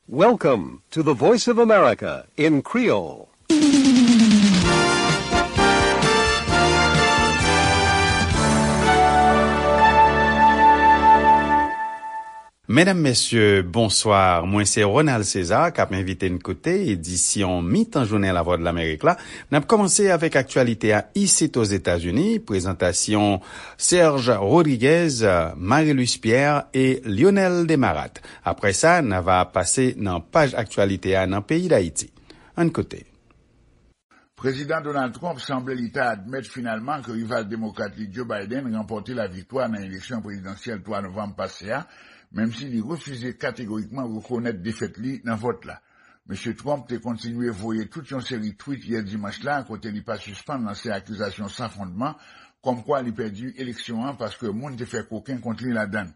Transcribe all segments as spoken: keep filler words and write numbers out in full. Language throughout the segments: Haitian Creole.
Welcome to the Voice of America in Creole. Medam, mesye, bonswa. Mwen se Ronald César k ap envite n koute edisyon mitan jounen Lavwadlamerik la. N ap kòmanse avèk aktyalite a isit Ozetazini, prezantasyon Serge Rodriguez, Marie-Luce Pierre e Lionel Desmarattes. Apre sa, n a va pase nan paj aktyalite a nan peyi Dayiti. Ann koute. Prezidan Donald Trump sanble li ta admèt finalman ke rival demokrat li Joe Biden ranpòte laviktwa nan eleksyon prezidansyèl twa novanm pase a, menm si li refize kategorikman rekonèt defèt li nan vòt la. Mesye Trump te kontinye voye tout yon seri tweet yè dimanch la kote li pa sispann lanse akizasyon san fondman kòmkwa li pèdi eleksyon an paske moun te fè koken kont li ladan l.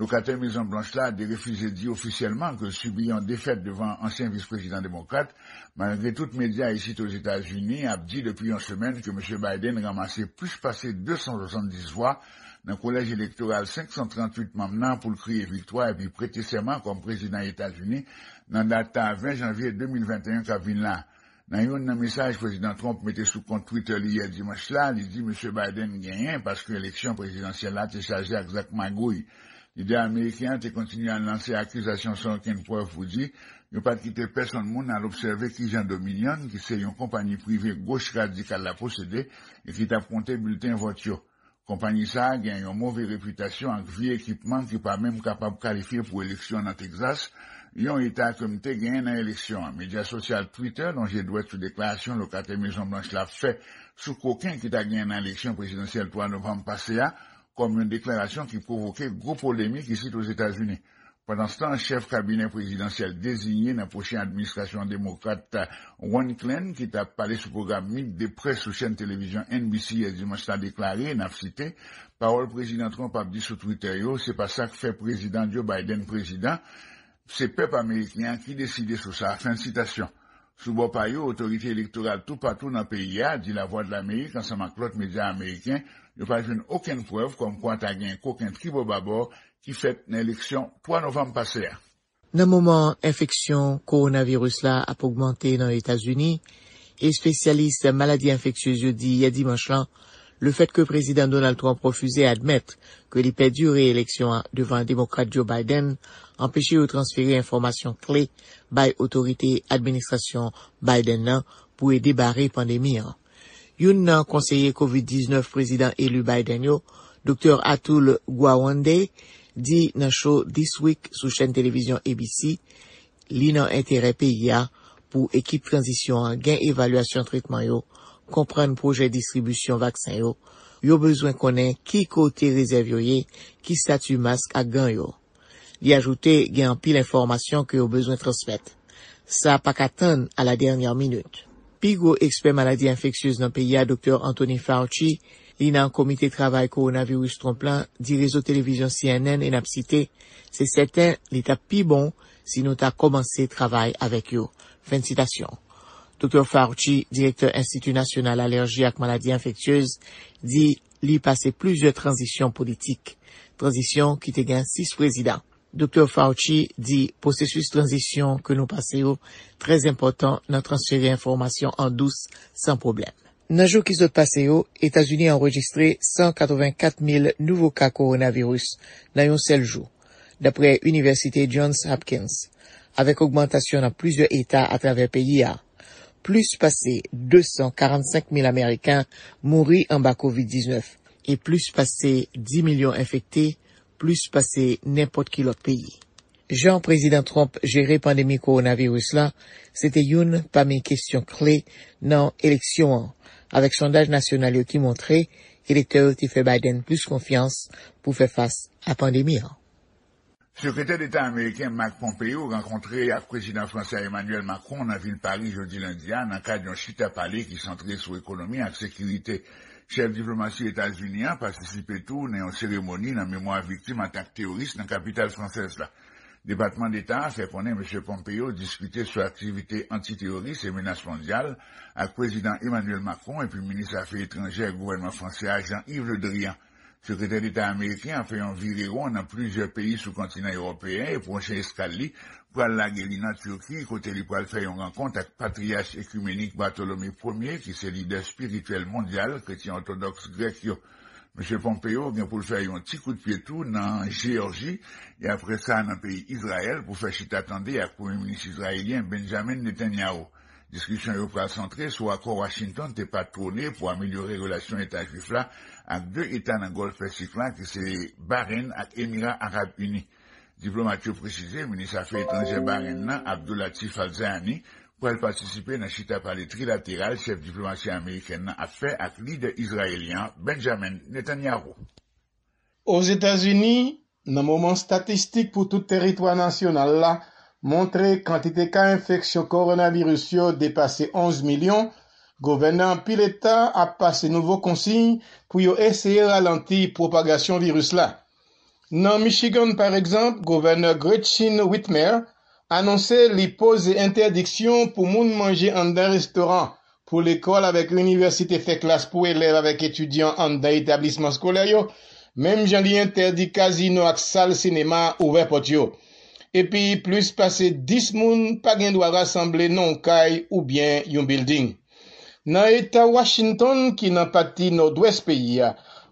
Lokatè Mezon Blanch la derefize di ofisyèlman ke l sibi yon defèt devan ansyen vis prezidan demokrat, malgre tout medya isit Ozetazini ap di depi yon semèn ke Mesye Biden ranmase plis pase de san swasanndis vwa nan kolèj elektoral senk san tranntuit manm nan pou l kriye viktwa epi prete sèman kòm prezidan Etazini nan dat ven janvye de mil venteyen k ap vin la. Nan youn nan mesaj Prezidan Trump mete sou kont Twitter li yè dimanch la, li di Mesye Biden genyen paske eleksyon prezidansyèl la te chaje ak zak magouy. Lidè ameriken an te kontinye al lanse akizasyon san okenn prèv pou di yo pa t kite pèsonn moun al obsève kijan Dominion, ki se yon konpayi prive goch radikal la posede e ki t ap konte bilten vòt yo. Konpayi sa a gen yon move repitasyon ak vye ekipman ki pa menm kapab kalifye pou eleksyon nan Texas, yon eta ke m te genyen nan eleksyon an. Medya sosyal Twitter lonje dwèt sou deklarasyon lokatè Mezon Blanch la fè sou koken ki ta genyen nan eleksyon prezidansyèl twa novanm pase a, kòm yon deklarasyon ki pwovoke gwo polemik isit Ozetazini. Pandanstan, chèf kabinè prezidansyèl deziye nan pwochen administrasyon demokrat Ron Klain, ki t ap pale sou pwogram Meet the Press sou chèn televizyon N B C yè dimanch la, deklare, n ap site, pawòl Prezidan Trump ap di sou Twitter yo, se pa sa k fè Prezidan Joe Biden prezidan, se pèp ameriken an ki deside sou sa, fen sitasyon. Sou bò pa yo, otorite elektoral toupatou nan peyi a di Lavwadlamerik ansanm ak lòt medya ameriken yo pa jwenn okenn prèv kòmkwa ta gen koken tribòbabò ki fèt nan eleksyon twa novanm pase a. Nan moman enfeksyon kowonaviris la ap ogmante nan Etazini, espesyalis maladi enfeksyez yo di yè dimanch lan, lefèt ke Prezidan Donald Trump refize admèt ke li pèdi reeleksyon an devan Demokrat Joe Biden anpeche yo transfere enfòmasyon kle bay otorite administrasyon Biden nan pou ede bare pandemi an. Youn nan konseye kovid diznèf prezidan eli Biden yo, Doktè Atul Gawande, di nan cho This Week sou chèn televizyon A B C, li nan enterè peyi a pou ekip tranzisyon an gen evalyasyon tretman yo, konprann pwojè distribisyon vaksen yo, yo bezwen konnen ki kote rezèv yo ye, ki estati mask ak gan yo. Li ajoute gen anpil enfòmasyon ke yo bezwen transmèt. Sa pa ka tann a la dènyè minit. Pi gwo ekspè maladi enfeksyez nan peyi a, Doktè Anthony Fauci, li nan komite travay kowonaviris Trump lan, di rezo televizyon C N N e n ap site, se sèten li t ap pi bon si nou ta kòmanse travay avèk yo. Fen sitasyon. Doktè Fauci, direktè Enstiti Nasyonal Alèji ak Maladi Enfeksyez, di li pase plizyè tranzisyon politik, tranzisyon ki te gen sis prezidan. Doktè Fauci di pwosesis tranzisyon ke nou pase yo trè enpòtan nan transfere enfòmasyon an dous san pwoblèm. Nan jou ki sot pase yo, Etazini anrejistre san katrevenkat mil nouvo ka kowonaviris nan yon sèl jou, dapre Inivèsite Johns Hopkins, avèk ogmantasyon nan plizyè eta atravè peyi a. Plis pase de san karannsenk mil Ameriken mouri anba kovid diznèf e plis pase dis milyon enfekte, plis pase nenpòt ki lòt peyi. Jan Prezidan Trump jere pandemi kowonaviris la, se te youn pami kesyon kle nan eleksyon an, avèk sondaj nasyonal yo ki montre elektè yo te fè Biden plis konfyans pou fè fas a pandemi an. Sekretè Deta ameriken Mike Pompeo rankontre ak Prezidan fransè Emmanuel Macron nan vil Paris jodi lendi a nan kad yon chita pale ki santre sou ekonomi ak sekirite. Chèf diplomasi Etazini an patisipe tou nan yon seremoni nan memwa viktim atak teworis nan kapital fransèz la. Depatman Deta a fè konnen Mesye Pompeo diskite sou aktivite antiteworis e menas mondyal ak Prezidan Emmanuel Macron epi Minis Afè Etranjè gouvènman fransè a Jean-Yves Le Drian. Sekretè Deta ameriken an fè yon virewon nan plizyè peyi sou kontinan ewopeyen e pwochen eskal li pral lage li nan Tiki, kote li pral fè yon rankont ak patriyach ekimenik Batolome Premye, ki se lidè espirityèl mondyal kretyen òtodòks grèk yo. Mesye Pompeo gen pou l fè yon ti kout pye tou nan Jeyòji, e apre sa nan peyi Izrayèl pou fè chita tande ak Premye Minis izrayelyen Benjamin Netanyahu. Diskisyon yo pral santre sou akò Washington te patwone pou amelyore relasyon Eta Jwif la ak de eta nan Gòlf Pèsik la, ki se Bahrein ak Emira Arab Ini. Diplomat yo presize minis afè etranjè Bahrein nan, Abdulatif Al-Zayani, pral patisipe nan chita pale trilateral chèf diplomasi amerikèn nan ap fè ak lidè izrayelyen an, Benjamin Netanyahu. Ozetazini, nan moman statistik pou tout tèritwa nasyonal la montre kantite ka enfeksyon kowonaviris yo depase onz milyon, gouvènè anpil eta ap pase nouvo konsiy pou yo eseye ralanti pwopagasyon viris la. Nan Michigan, pa egzanp, gouvènè Gretchen Whitmer anonse li poze entèdiksyon pou moun manje anndan restoran, pou lekòl avèk inivèsite fè klas pou elèv avèk etidyan anndan etablisman eskolè yo, menm jan li entèdi kazino ak sal sinema ouvè pòt yo. Epi, plis pase dis moun pa gen dwa rasanble nan yon kay oubyen yon bilding. Nan eta Washington, ki nan pati nòdwès peyi a,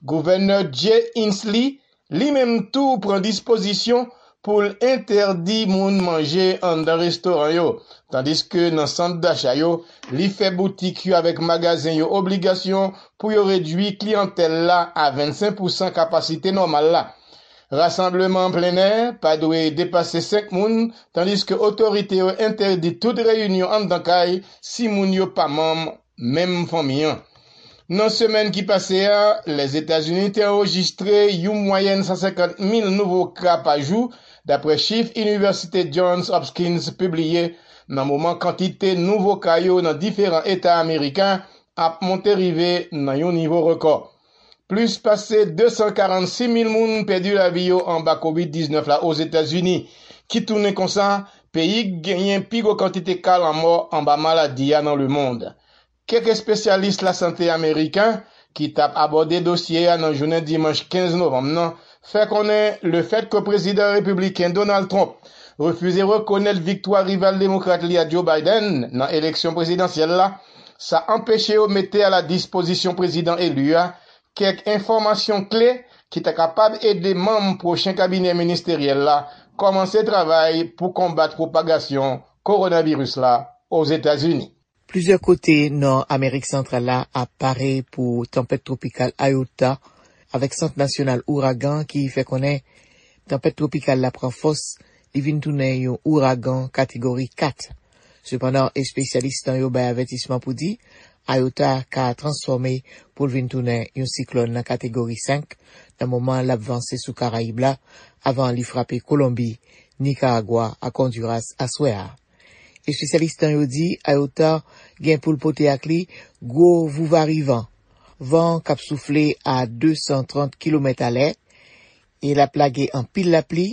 gouvènè Jay Inslee li menm tou pran dispozisyon pou l entèdi moun manje anndan restoran yo, tandiske nan sant dacha yo, li fè boutik yo avèk magazen yo obligasyon pou yo redui kliyantèl la a vennsenk pousan kapasite nòmal la. Rasanbleman an plennè pa dwe depase senk moun, tandiske otorite yo entèdi tout reyinyon anndan kay si moun yo pa manm menm fanmi an. Nan semèn ki pase a, Lèzetazini te anrejistre yon mwayèn san senkant mil nouvo ka pa jou, dapre chif Inivèsite Johns Hopkins pibliye, nan moman kantite nouvo ka yo nan diferan eta ameriken ap monte rive nan yon nivo rekò. Plis pase de san karannsis mil moun pèdi lavi yo anba kovid diznèf la Ozetazini, ki tounen konsa peyi k genyen pi gwo kantite ka lanmò anba maladi a nan lemonn. Kèk espesyalis lasante ameriken ki t ap abòde dosye a nan jounen dimanch kenz novanm nan fè konnen lefètke prezidan repibliken Donald Trump refize rekonèt viktwa rival demokrat li a Joe Biden nan eleksyon prezidansyèl la, sa anpeche yo mete a la dispozisyon prezidan eli a kèk enfòmasyon kle ki ta kapab ede manm pwochen kabinè ministeryèl la kòmanse travay pou konbat pwopagasyon kowonaviris la Ozetazini. Plizyè kote nan Amerik Santral la ap pare pou tanpèt twopikal Iota, avèk Sant Nasyonal Ouragan ki fè konnen tanpèt twopikal la pran fòs, li vin tounen yon ouragan kategori kat. Sepandan, espesyalis tan yo bay avètisman pou di Iota ka transfòme pou l vin tounen yon siklòn nan kategori senk nan moman l ap vanse sou Karayib la, avan li frape Kolonbi, Nikaragwa ak Ondiras aswè a. Espesyalis tan yo di Iota gen pou l pote ak li gwo vouvarivan, van k ap soufle a de san trant kilomèt alè, e l ap lage anpil lapli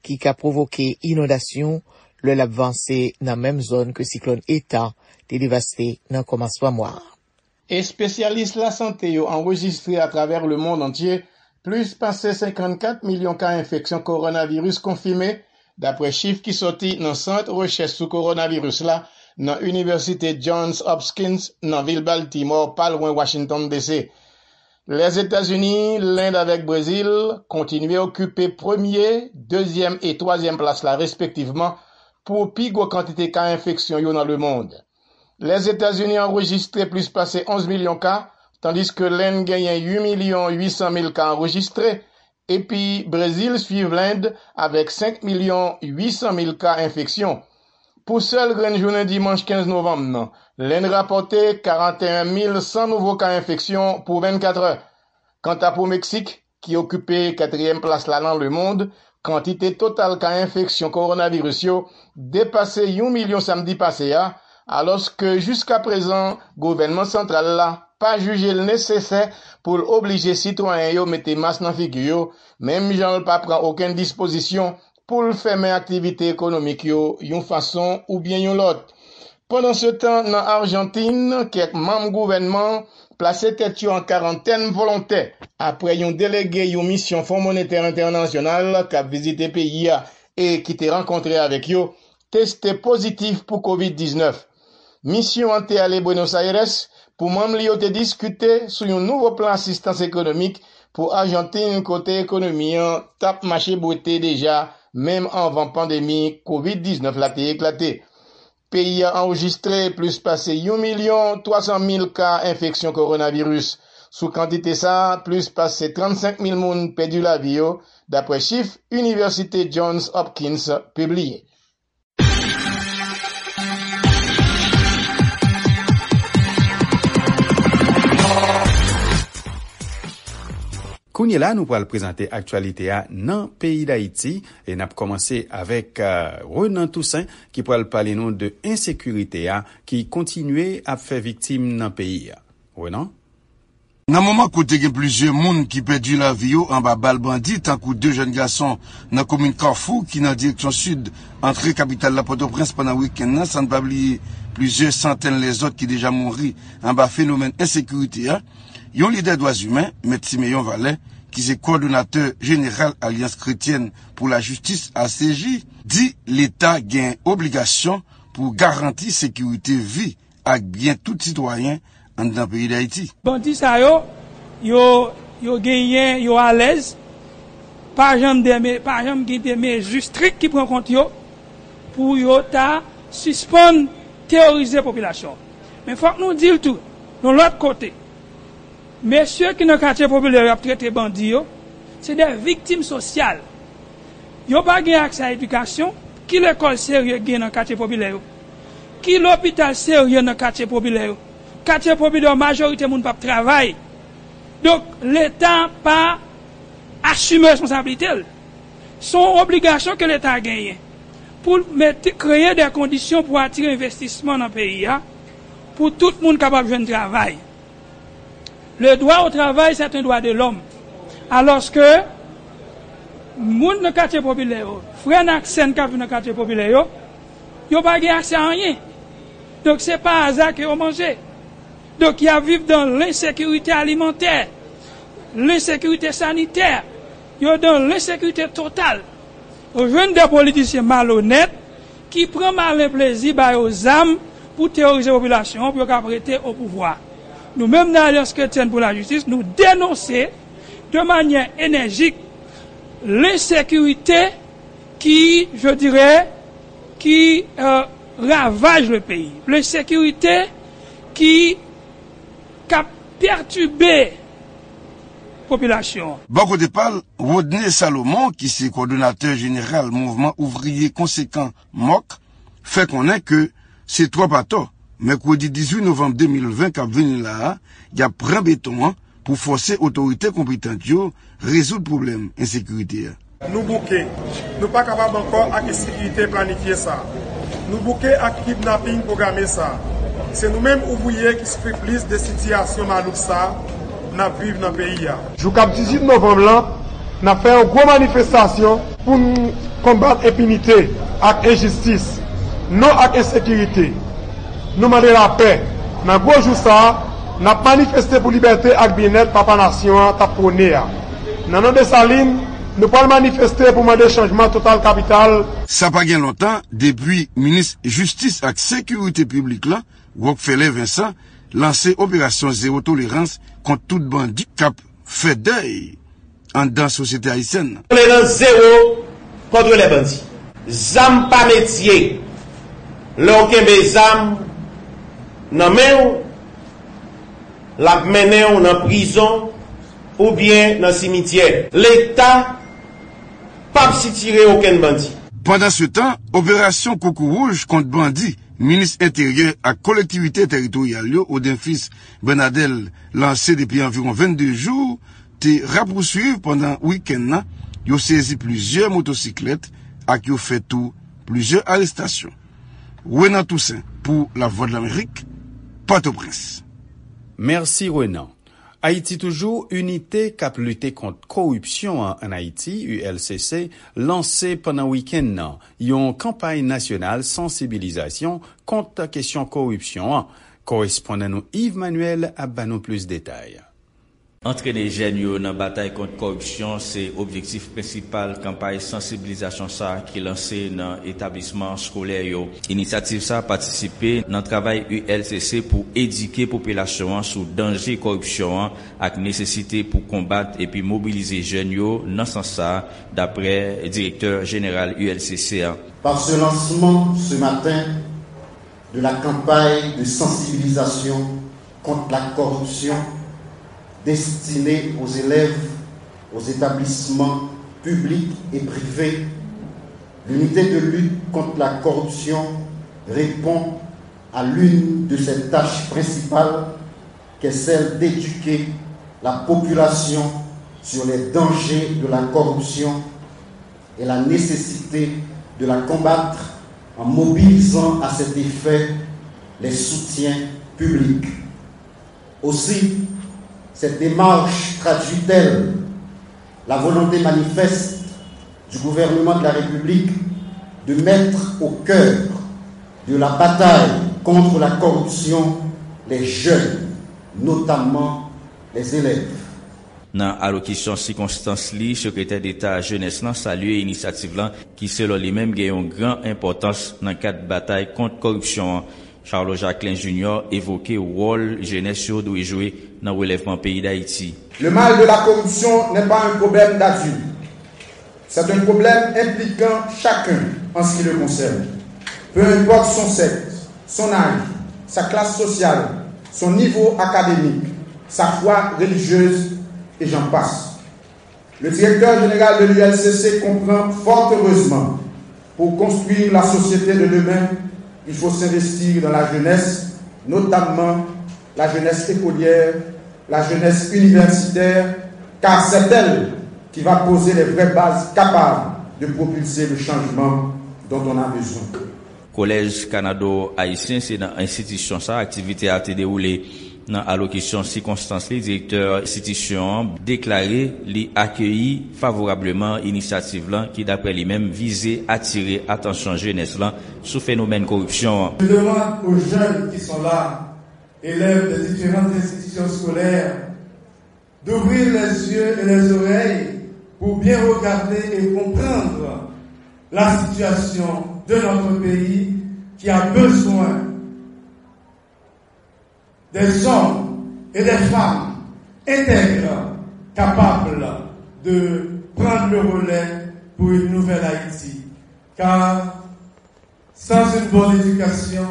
ki ka pwovoke inondasyon lè l ap vanse nan menm zòn ke siklòn Eta te devaste nan kòmansman mwa a. Espesyalis lasante yo anrejistre atravè lemonn antye plis pase senkannkat milyon ka enfeksyon kowonaviris konfime, dapre chif ki soti nan Sant Rechèch sou Kowonaviris la nan Inivèsite Johns Hopkins nan vil Baltimore, pa lwen Washington D C. Lèzetazini, Lend avèk Brezil kontinye okipe premye, dezyèm e twazyèm plas la respektivman pou pi gwo kantite ka enfeksyon yo nan lemonn. Lèzetazini anrejistre plis pase onz milyon ka, tandiske Lend genyen uit milyon uit san mil ka anrejistre, epi Brezil swiv Lend avèk senk milyon uit san mil ka enfeksyon. Pou sèl grenn jounen dimanch kenz novanm nan, Lend rapòte karanteyen mil san nouvo ka enfeksyon pou vennkatrè. Kanta pou Meksik, ki okipe katriyèm plas la nan lemonn, kantite total ka enfeksyon kowonaviris yo depase yon milyon samdi pase a, alòske jiskaprezan gouvènman santral la pa jije l nesesè pou l oblije sitwayen yo mete mas nan figi yo, menm jan l pa pran okenn dispozisyon pou l fèmen aktivite ekonomik yo yon fason oubyen yon lòt. Pandansetan, nan Ajantin, kèk manm gouvènman plase tèt yo an karantèn volontè apre yon delege yon misyon Fon Monetè Entènasyonal k ap vizite peyi a e ki te rankontre avèk yo teste pozitif pou kovid diznèf. Misyon an te ale Buenos Aires pou manm li yo te diskite sou yon nouvo plan asistans ekonomik pou Ajantin, kote ekonomi an t ap mache bwete deja, menm anvan pandemi kovid diznèf la te eklate. Peyi a anrejistre plis pase yon milyon twa san mil ka enfeksyon kowonaviris. Sou kantite sa a, plis pase trannsenk mil moun pèdi lavi yo, dapre chif Inivèsite Johns Hopkins pibliye. Kounye la, nou pral prezante aktyalite a nan peyi Dayiti e n ap kòmanse avèk, euh, Renan Toussaint ki pral pale nou de ensekirite a ki kontinye ap fè viktim nan peyi a. Renan? Nan moman kote gen plizyè moun ki pèdi lavi yo anba bal bandi, tankou de jèn gason nan komin Kafou ki nan direksyon sid antre kapital la Pòtoprens pandan wikenn nan, san n pa bliye plizyè santèn lèzòt ki deja mouri anba fenomèn ensekirite a, yon lidè dwa imen, Mèt Simeyon Valè, ki se kowòdonatè jeneral Alyans Kretyèn pou Lajistis, A C J, di Leta gen obligasyon pou garanti sekirite vi ak byen tout sitwayen anndan peyi Dayiti. Bandi sa yo, yo, yo genyen, yo alèz, pa janm de me-, pa janm gen de mezi strik ki pran kont yo pou yo ta sispann teworize popilasyon. Men fòk nou di l tou, yon lòt kote, mesye ki nan katye popilè yo ap trete bandi yo, se de viktim sosyal. Yo pa gen aksè a edikasyon. Ki lekòl serye gen nan katye popilè yo? Ki lopital serye nan katye popilè yo? Katye popilè yo, majorite moun p ap travay. Donk, Leta pa asime responsablite l. Se yon obligasyon ke Leta genyen pou l mete, kreye de kondisyon pou atire envestisman nan peyi a, pou tout moun kapab jwenn travay. Le droit au travail, c'est un droit de l'homme. Alòske, moun nan katye popilè yo, frè n ak sè n k ap viv nan katye popilè yo, yo pa gen aksè a anyen. Donk, se pa aza ke yo manje. Donk, y ap viv dan lensekirite alimantè, lensekirite sanitè, yo dan lensekirite total. Ou jwenn de politisyen malonèt ki pran malen plezi ba yo zam pou teworize popilasyon an, pou yo kab rete o pouvwa. Nou menm nan Alyans Kretyèn pou Lajistis, nou denonse de manyè enèjik lensekirite ki, je dirais, qui, euh, ravage le pays. Lensekirite ki, k ap pètibe popilasyon an. Bò kote pa l, Rodney Salomon, ki se kowòdonatè jeneral Mouvman Ouvriye Konsekan, mok, fè konnen ke se twòp atò, mèkredi dizuit novanm de mil ven k ap vini la a, y ap pran beton an pou fòse otorite konpetan yo rezoud pwoblèm ensekirite a. Nou bouke. Nou pa kapab ankò ak ensekirite planifye sa. Nou bouke ak kidnaping pwograme sa. Se nou menm ouvriye ki soufri plis de sitiyasyon malouk sa n ap viv nan peyi a. Jou k ap dizuit novanm lan, n ap fè yon gwo manifestasyon pou n konbat enpinite ak enjistis, non ak ensekirite. Nou mande lapè. Nan gwo jou sa a, n ap manifeste pou libète ak byennèt papa nasyon an t ap pwone a. Nan non Desalin, nou pral manifeste pou mande chanjman total kapital. Sa pa gen lontan depi minis jistis ak sekirite piblik la, Rockfeller Vincent, lanse operasyon zewo tolerans kont tout bandi k ap fè dèy anndan sosyete ayisyèn nan. Tolerans zewo contre les bandits. Zam pa metye. Lè w kenbe zam nan men w, l ap mennen w nan prizon oubyen nan simityè. Leta p ap sitire okenn bandi. Pandansetan, operasyon Koukouwouj kont bandi, minis enteryè ak kolektivite teritoryal yo, Odenfis Bernadel, lanse depi anviwon vennde jou, te rapousuiv pandan wikenn nan, yo sezi plizyè motosiklèt ak yo fè tou plizyè arestasyon. Renan Toussaint pou Lavwadlamerik, Pòtoprens. Mèsi, Renan. Ayiti toujou, Inite k ap lite kont koripsyon an ann Ayiti, U L C C, lanse pandan wikenn nan yon kanpay nasyonal sansibilizasyon kont kesyon koripsyon an, Korespondan nou Yves Manuel ap ba nou plis detay. Antrene jèn yo nan batay kont kòripsyon se objektif prensipal kanpay sansibilizasyon sa a ki lanse nan etablisman skolè yo. Inisyativ sa a patisipe nan travay U L C C pou edike popilasyon an sou danje kòripsyon an ak nesesite pou konbat epi mobilize jèn yo nan sans sa a, dapre direktè jeneral U L C C a. Par ce lancement ce matin de la campagne de sensibilisation contre la corruption destinée aux élèves, aux établissements publics et privés, l'unité de lutte contre la corruption répond à l'une de ses tâches principales, qui est celle d'éduquer la population sur les dangers de la corruption et la nécessité de la combattre en mobilisant à cet effet les soutiens publics. Aussi, cette démarche traduit-elle la volonté manifeste du gouvernement de la République de mettre au cœur de la bataille contre la corruption les jeunes, notamment les élèves. Nan alokisyon sikonstans li, Sekretè Deta Jenès lan salye inisyativ lan, ki selon li menm gen yon gran enpòtans nan kad batay kont kòripsyon an. Charles Jacquelin Junior evoke wòl jenès yo dwe jwe nan relèvman peyi Dayiti. Le mal de la corruption n'est pas un problème d'adulte. C'est un problème impliquant chacun en ce qui le concerne. Peu importe son sexe, son âge, sa classe sociale, son niveau académique, sa foi religieuse, et j'en passe. Le directeur général de l'U L C C comprend fort heureusement, pour construire la société de demain, il faut s'investir dans la jeunesse, notamment la jeunesse écolière, la jeunesse universitaire, car c'est elle qui va poser les vraies bases capables de propulser le changement dont on a besoin. Kolèj Kanado Ayisyen, se nan enstitisyon sa a aktivite a te dewoule. Nan alokisyon sikonstans li, direktè enstitisyon an deklare li akeyi favorableman inisyativ lan ki, daprè li menm, vize atire atansyon jenès lan sou fenomèn koripsyon an. Je demande aux jeunes qui sont là, élèves des différentes institutions scolaires, d'ouvrir les yeux et les oreilles pour bien regarder et comprendre la situation de notre pays qui a besoin des hommes et des femmes intègres, capables de prendre le relais pour une nouvelle Haïti. Car sans une bonne éducation,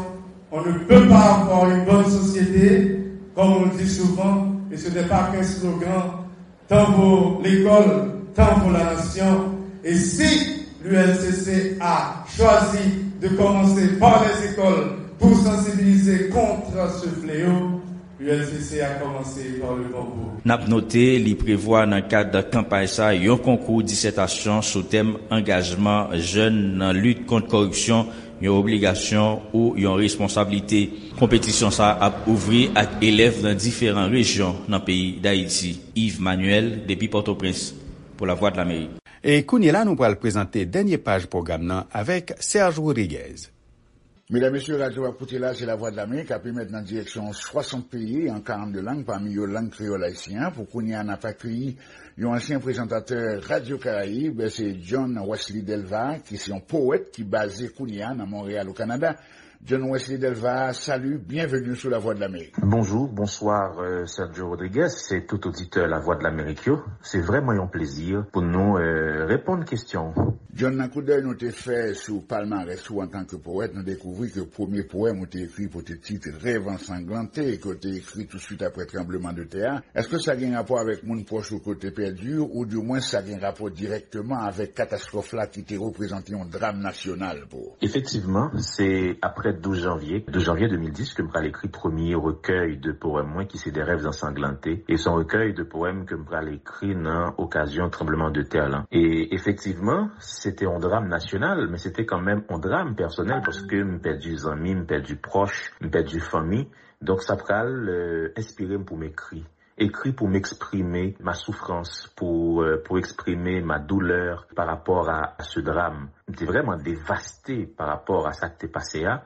on ne peut pas avoir une bonne société, comme on le dit souvent, et ce n'est pas qu'un slogan, tant vaut l'école, tant vaut la nation. Et si l'U L C C a choisi de commencer par les écoles pour sensibiliser contre ce fléau, U L C C a commencé par le bon bout. N ap note, li prevwa nan kad kanpay sa yon konkou disètasyon sou tèm angajman jèn nan lit kont kòripsyon, yon obligasyon ou yon responsablite. Konpetisyon sa ap ouvri ak elèv nan diferan rejyon nan peyi Dayiti. Yves Manuel, depi Pòtoprens, pou Lavwadlamerik. E kounye la, nou pral prezante dènye paj pwogram nan avèk Serge Rodriguez. Medam, mesye, radyo w ap koute la, se Lavwadlamerik, k ap emèt nan direksyon swasant peyi, an karannde lang, pami yo lang kreyòl ayisyen an. Pou kounye a, n ap akeyi yon ansyen prezantatè Radyo Karayib, se John Wesley Delva, ki se yon powèt ki baze kounye a nan Monreyal, o Kanada. John Wesley Delva, salut, bienvenue sou Lavwadlamerik. Bonjou, bonswa, euh, Sergio Rodriguez, se tout oditè Lavwadlamerik yo. Se vrèman yon plezi pou nou, euh, reponn kesyon w. John, nan koudèy nou te fè sou palmarès ou antanke powèt, nou dekouvri ke premye powèm ou te ekri pote tit Rèv ansanglante, ke w te ekri tousuit apre tranblemanntè a. Èske sa gen rapò avèk moun pwòch ou ke w te pèdi, oudimwen sa gen rapò dirèkteman avèk katastwòf la ki te reprezante yon dram nasyonal pou ou? Efektivman, se apre douz janvye, douz janvye de mil dis, ke m pral ekri premye rekèy de powèm mwen, ki se De rêves ensanglants. E se yon rekèy de powèm ke m pral ekri nan okazyon tranblemanntè lan. E efektivman, se te yon dram nasyonal, men se te kanmenm yon dram pèsonèl, paske m pèdi zanmi, m pèdi pwòch, m pèdi fanmi. Donk, sa pral, euh, enspire m pou m ekri. Écrit pour m'exprimer ma souffrance, pour, euh, pour exprimer ma douleur par rapport à, à ce drame. M te vrèman devaste pa rapò a sa k te pase a,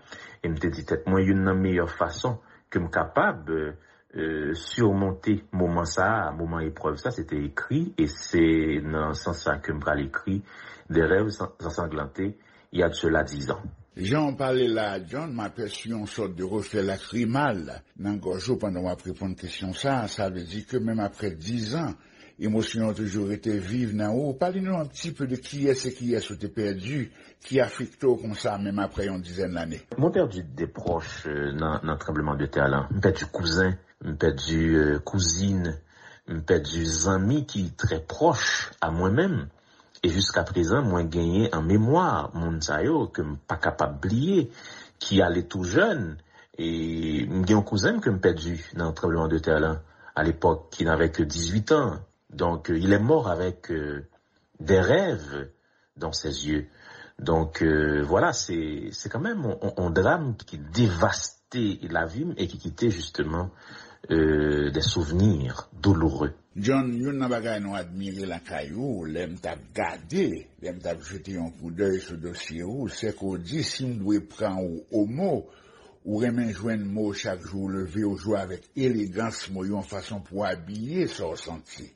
e m te di tèt mwen, youn nan meyè fason ke m kapab, e, e, simonte moman sa a, moman eprèv sa, se te ekri, e se nan sans sa ke m pral ekri Des rêves ensanglantés, il y a de cela dix ans. Jan w pale la a, John, m apèsi yon sòt de reflè lakrimal nan gòj ou pandan w ap reponn kesyon sa a. Sa vle di ke menm apre dizan, emosyon yo toujou rete viv nan ou. Pale nou un petit peu de kiyès e kiyès ou te pèdi, ki afekte w konsa, menm apre yon dizèn lane. Mwen pèdi de pwòch, euh, nan, nan tranbleman de tè lan. M pèdi kouzen, m pèdi, euh, kouzin, m pèdi zanmi ki trè pwòch a mwen menm. E jiska prezan, mwen genyen an memwa moun sa yo ke m pa kapab bliye, ki ale tou jèn. E m gen yon kouzen m ke m pèdi nan tranbleman de tè lan, a lepòk, ki n avè ke dizuit an. Donc, euh, il est mort avec, euh, des rêves dans ses yeux. Donc, euh, voilà, c'est, c'est quand même un, un, un drame qui dévastait la vie et qui quittait justement, euh, des souvenirs douloureux. John, youn nan bagay nou admire lakay ou, lè m t ap gade, lè m t ap jete yon koudèy sou dosye ou, se ke w di, si m dwe pran ou o mo, ou renmen jwenn mo chak jou ou leve, ou jwe avèk elegans mo yo, yon fason pou w abiye sa w santi.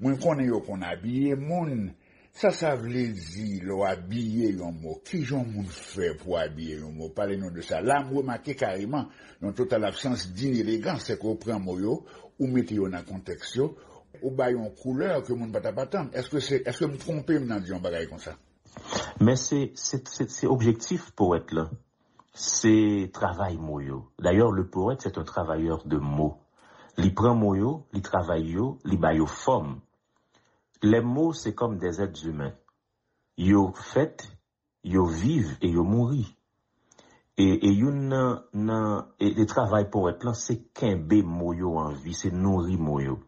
Mwen konnen yo konn abiye moun. Sa sa vle di lè w abiye yon mo? Kijan yon moun fè pou abiye yon mo? Pale nou de sa. La, m remake kareman yon total absans d'inélégance, se ke w pran mo yo, ou mete yo nan kontèks yo, ou ba yo yon koulè ke moun pa t ap atann. Èske se, èske m twonpe m nan di yon bagay konsa? Men se, se, se, se objektif powèt lan. Se travay mo yo. D'ailleurs, le poète, c'est un travailleur de mots. Li pran mo yo, li travay yo, li ba yo fòm. Les mots, c'est comme des êtres humains. Yo fèt, yo viv e yo mouri. E, e youn nan, nan e, e travay powèt lan, se kenbe mo yo an vi, se nouri mo yo.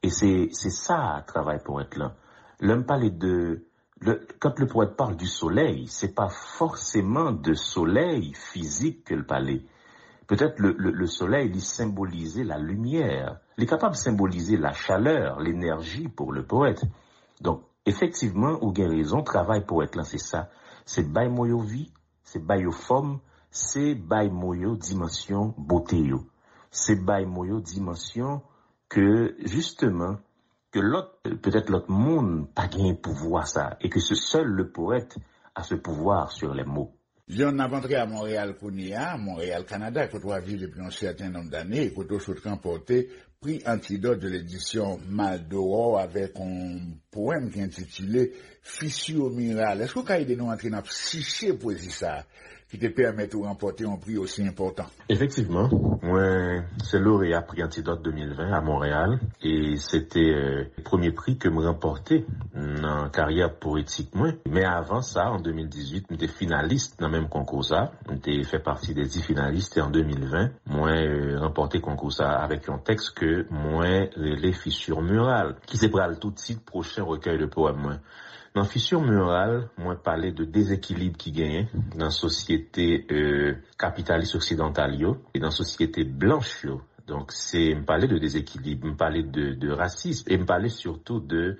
E se, se sa travay powèt lan. Lè m pale de, le, quand le poète parle du soleil, c'est pas forcément de soleil physique ke l pale. Peut-être le, le, le soleil, li senbolize la lumière. Li kapab senbolize la chaleur, l'énergie pour le poète. Donk, efektivman, ou gen rezon, travay powèt lan se sa. Se bay mo yo vi, se bay yo fòm, se bay mo yo dimansyon bote yo. Se bay mo yo dimansyon ke, jisteman, ke lòt, petèt lòt moun pa genyen pouvwa sa, e ke se sèl le poète a ce pouvoir sur les mots. John, n ap antre a Monreyal kounye a, Monreyal, Kanada, kote w ap viv depi yon sèten nonb dane, e kote w sot ranpòte Prix Antidot de l'édition Mal d'Aurore avèk yon powèm ki entitile Fissure murale. Èske w ka ede nou antre nan psiche pwezi sa a ki te pèmèt ou ranpòte yon pri osi enpòtan? Efektivman, mwen se loreya Prix Antidot de mil ven a Monreyal, e se te, euh, premye pri ke m ranpòte nan karyè powetik mwen. Men avan sa, an de mil dizuit, m te finalis nan menm konkou sa. M te fè pati de dis finalis, e an de mil ven, mwen, euh, ranpòte konkou sa avèk yon tèks ke mwen rele Fissure murale, ki se pral tou tit pwochen rekèy de powèm mwen. Nan Fissure murale, mwen pale de dezekilib ki genyen nan sosyete, euh, kapitalis oksidantal yo e nan sosyete blanch yo. Donk, se, m pale de dezekilib, m pale de, de rasism, e m pale sitou de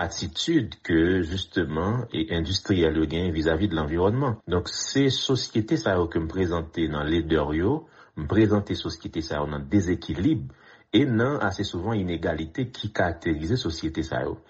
atitid ke, jisteman, e endistriyèl yo genyen vizavi de lanviwònman. Donk, se sosyete sa yo ke m prezante nan ledè yo, m prezante sosyete sa yo nan dezekilib e nan, ase souvan, inegalite ki karakterize sosyete sa yo.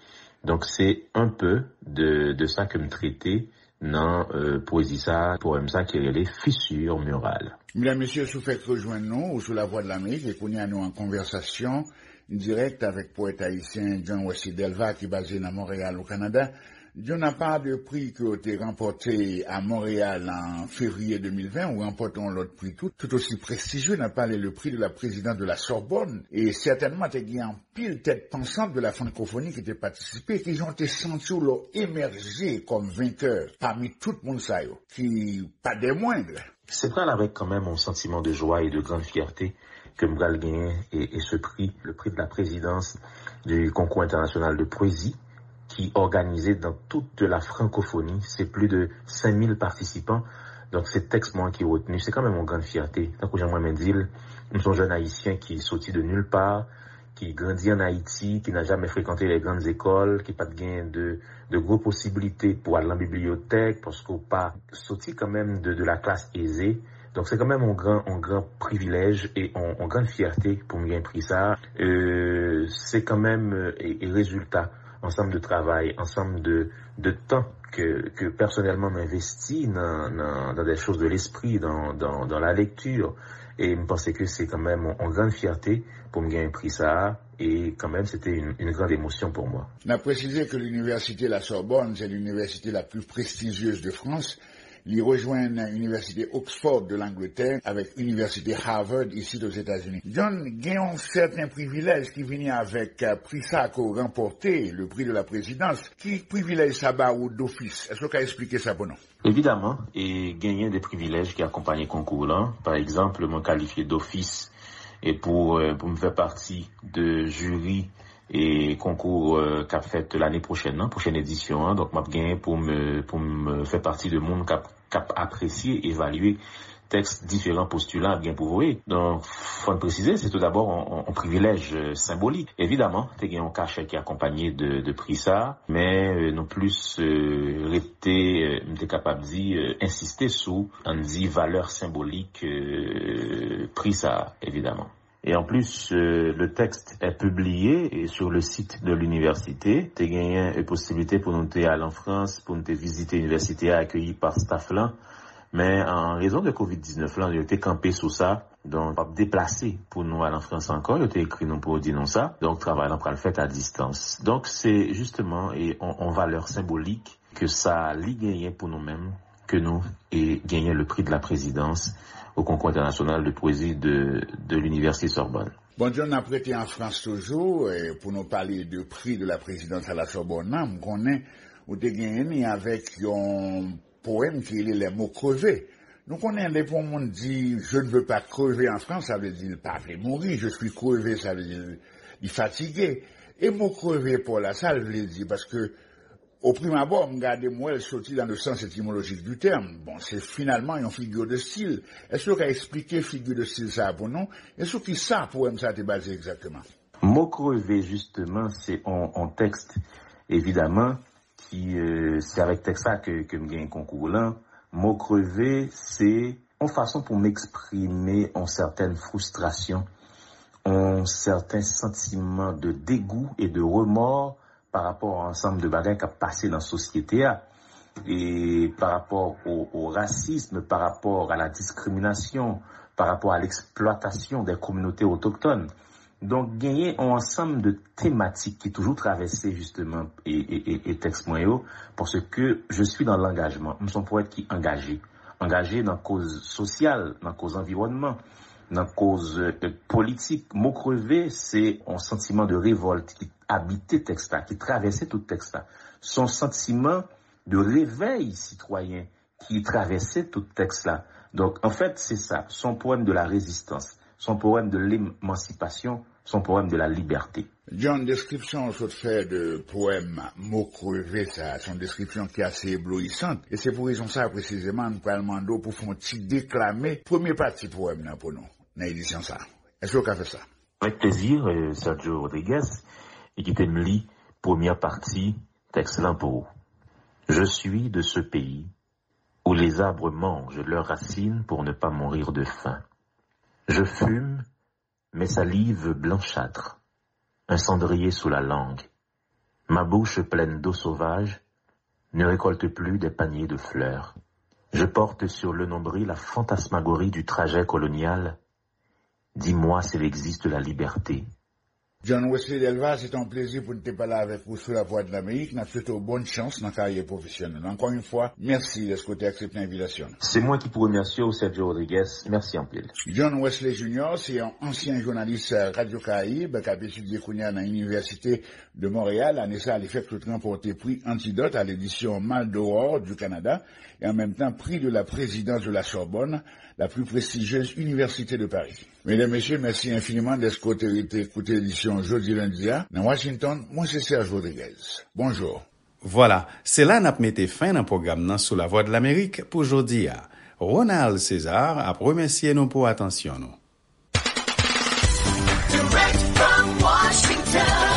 Donk, se un peu de, de sa ke m trete nan, euh, pwezi sa, powèm sa ki rele Fissure murale. Medam, mesye, si w fèk rejwenn nou, ou sou Lavwadlamerik, e kounye a nou an konvèsasyon dirèk avèk powèt ayisyen John Wesley Delva ki baze nan Monreyal, o Kanada. John, apa de pri ke w te ranpòte a Monreyal an fevriye de mil ven, ou ranpòte yon lòt pri tou, tout osi prestijye, n ap pale le prix de la présidente de la Sorbonne, e sètènman te gen anpil tèt pansant de la francophonie ki te patisipe. Kijan w te santi w lè w emèje kòm venkè pami tout moun sa yo, ki pa des moindres? Se pral avèk kanmenm yon santiman de jwa e de grann fyète ke m pral genyen e, e se pri, le prix de la présidence du concours international de poésie, ki òganize dans toute la francophonie. Se plis de senk mil patisipan. Donk, se tèks mwen ki retni. Se kanmenm yon grann fyète. Tankou jan mwen menm di l, m se yon jèn ayisyen ki soti de nulle part, qui grandit en Haïti, qui n'a jamais fréquenté les grandes écoles, ki pa t gen de, de gwo posibilite pou al nan bibliyotèk, paske w pa soti kanmenm de, de la classe aisée, Donk, se kanmenm yon gran, yon gran privilèj e yon, yon gran fyète pou m gen pri sa a. Euh, se kanmenm, euh, e, e rezilta ansanm de travay, ansanm de, de tan ke, ke pèsonèlman m envesti nan, nan, dans des choses de l'esprit, dans, dans, dans la lecture. E m panse ke se kanmenm yon, yon gran fyète pou m gen pri sa a. E kanmenm, se te yon, yon gran emosyon pou mwen. N ap presize ke l'université La Sorbonne, c'est l'université la plus prestigieuse de France. Li rejwenn Inivèsite Oxford de Langletè avèk Inivèsite Harvard isit Ozetazini. John, gen yon sèten privilèj ki vini avèk, eh, pri sa ke w ranpòte, le prix de la présidence. Ki privilèj sa ba ou dofis? Èske w ka eksplike sa pou nou? Evidaman, e genyen de privilèj ki akonpaye konkou lan. Pa egzanp, mwen kalifye dofis e pou, eh, pou m fè pati de jiri e konkou, eh, k ap fèt lane pwochèn nan, pwochèn edisyon an. Donk, m ap genyen pou m, pou m fè pati de moun k ap, k ap apresye, evalye tèks diferan postilan ap gen pou voye. Donk, fò n presize, se tou dabò yon, yon, yon privilèj, eh, senbolik. Evidaman, te gen yon kachè ki akonpaye de, de pri sa, men, eh, nou plis, eh, rete, eh, m te kapab di, eh, ensiste sou, ann di, valè senbolik, eh, pri sa, evidaman. Et en plus, euh, le texte est publié et sur le site de l'université. Te genyen, euh, posiblite pou nou te al an Frans, pou nou te vizite inivèsite a, akeyi pa staff lan. Men an rezon de kovid diznèf lan, yo te kanpe sou sa. Donk, p ap deplase pou nou al an Frans ankò. Yo te ekri nou pou yo di nou sa. Donk, travay lan pral fèt a distans. Donk, se jisteman, e, on, on valè senbolik ke sa li genyen pou nou menm, ke nou, e, genyen le prix de la présidence au concours international de poésie de, de l'Université Sorbonne. Bon, John, n ap rete an Frans toujou, e, pou nou pale de prix de la présidence à la Sorbonne nan. M konnen ou te genyen ni avèk yon powèm ki rele Les mots crevés. Nou konnen lè pou yon moun di, "Je ne veux pas crever en France", sa vle di l pa vle mouri, "Je suis crevé", sa vle di li fatige. E mo kreve pa w la, sa l vle di? Paske, o prim abò, m gade, m wè l soti dans le sens étymologique du terme. Bon, se finalman yon figure de style. Èske w ka eksplike figure de style sa a pou nou? E sou ki sa powèm sa a te baze egzakteman? Mo kreve, jisteman, se on, on tèks, evidaman, ki, euh, se avèk tèks sa ke, ke m gen konkou lan. Mo kreve, se on fason pou m eksprime on sètèn fristrasyon, on sèten santiman de degou e de remò pa rapò a ansanm de bagay k ap pase nan sosyete a, e pa rapò o, o rasism, pa rapò a la diskriminasyon, pa rapò a leksplwatasyon de kominote otoktòn. Donk, genyen yon ansanm de tematik ki toujou travèse, jisteman, e, e, e, e tèks mwen yo, paske je suis dans l'engagement. M se yon powèt ki angaje. Angaje nan koz sosyal, nan koz anviwònman, nan koz, e, politik. Mo kreve, se yon santiman de revòlt ki abite tèks la, ki travèse tout tèks la. Se yon santiman de revèy sitwayen ki travèse tout tèks la. Donk, anfèt, se sa. Se yon powèm de la rezistans. Se yon powèm de lemansipasyon. Se yon powèm de la libète. John, deskripsyon w sot fè de powèm Mo kreve sa, se yon deskripsyon ki ase ebloyisan. E se pou rezon sa, presizeman, n pral mande w pou fè yon ti deklame premye pati powèm nan pou nou, nan edisyon sa. Èske w ka fè sa? Avec plaisir, euh, Sergio Rodriguez, e kite m li premyè pati tèks lan pou ou. Je suis de ce pays où les arbres mangent leurs racines pour ne pas mourir de faim. Je fume, mes salives blanchâtres, un cendrier sous la langue. Ma bouche pleine d'eau sauvage ne récolte plus des paniers de fleurs. Je porte sur le nombril la fantasmagorie du trajet colonial. Dis-moi s'il existe la liberté. John Wesley Delva, se te yon plezi pou n te pale avèk ou sou Lavwadlamerik. N ap swete w bòn chans nan karyè pwofesyonèl. Ankò yon fwa, mèsi dèske w te aksepte envitasyon nou. Se mwen ki pou remèsye w, Sergio Rodriguez. Mèsi anpil. John Wesley Junior se yon ansyen jounalis Radyo Karayib k ap etidye kounye a nan Inivèsite de Montréal. Ane sa a, li fèk sot ranpòte pri Antidot à l'édition Mal d'Aurore du Canada et en même temps prix de la présidence de la Sorbonne, la plus prestigieuse université de Paris. Medam, mesye, mèsi enfiniman dèske w te rete koute edisyon jodi lendi a. Nan Washington, mwen se Serge Rodriguez. Bonjou. Vwala, se la n ap mete fen nan pwogram nan sou Lavwadlamerik pou jodi a. Ronald César ap remèsye nou pou atansyon nou. Direct from Washington,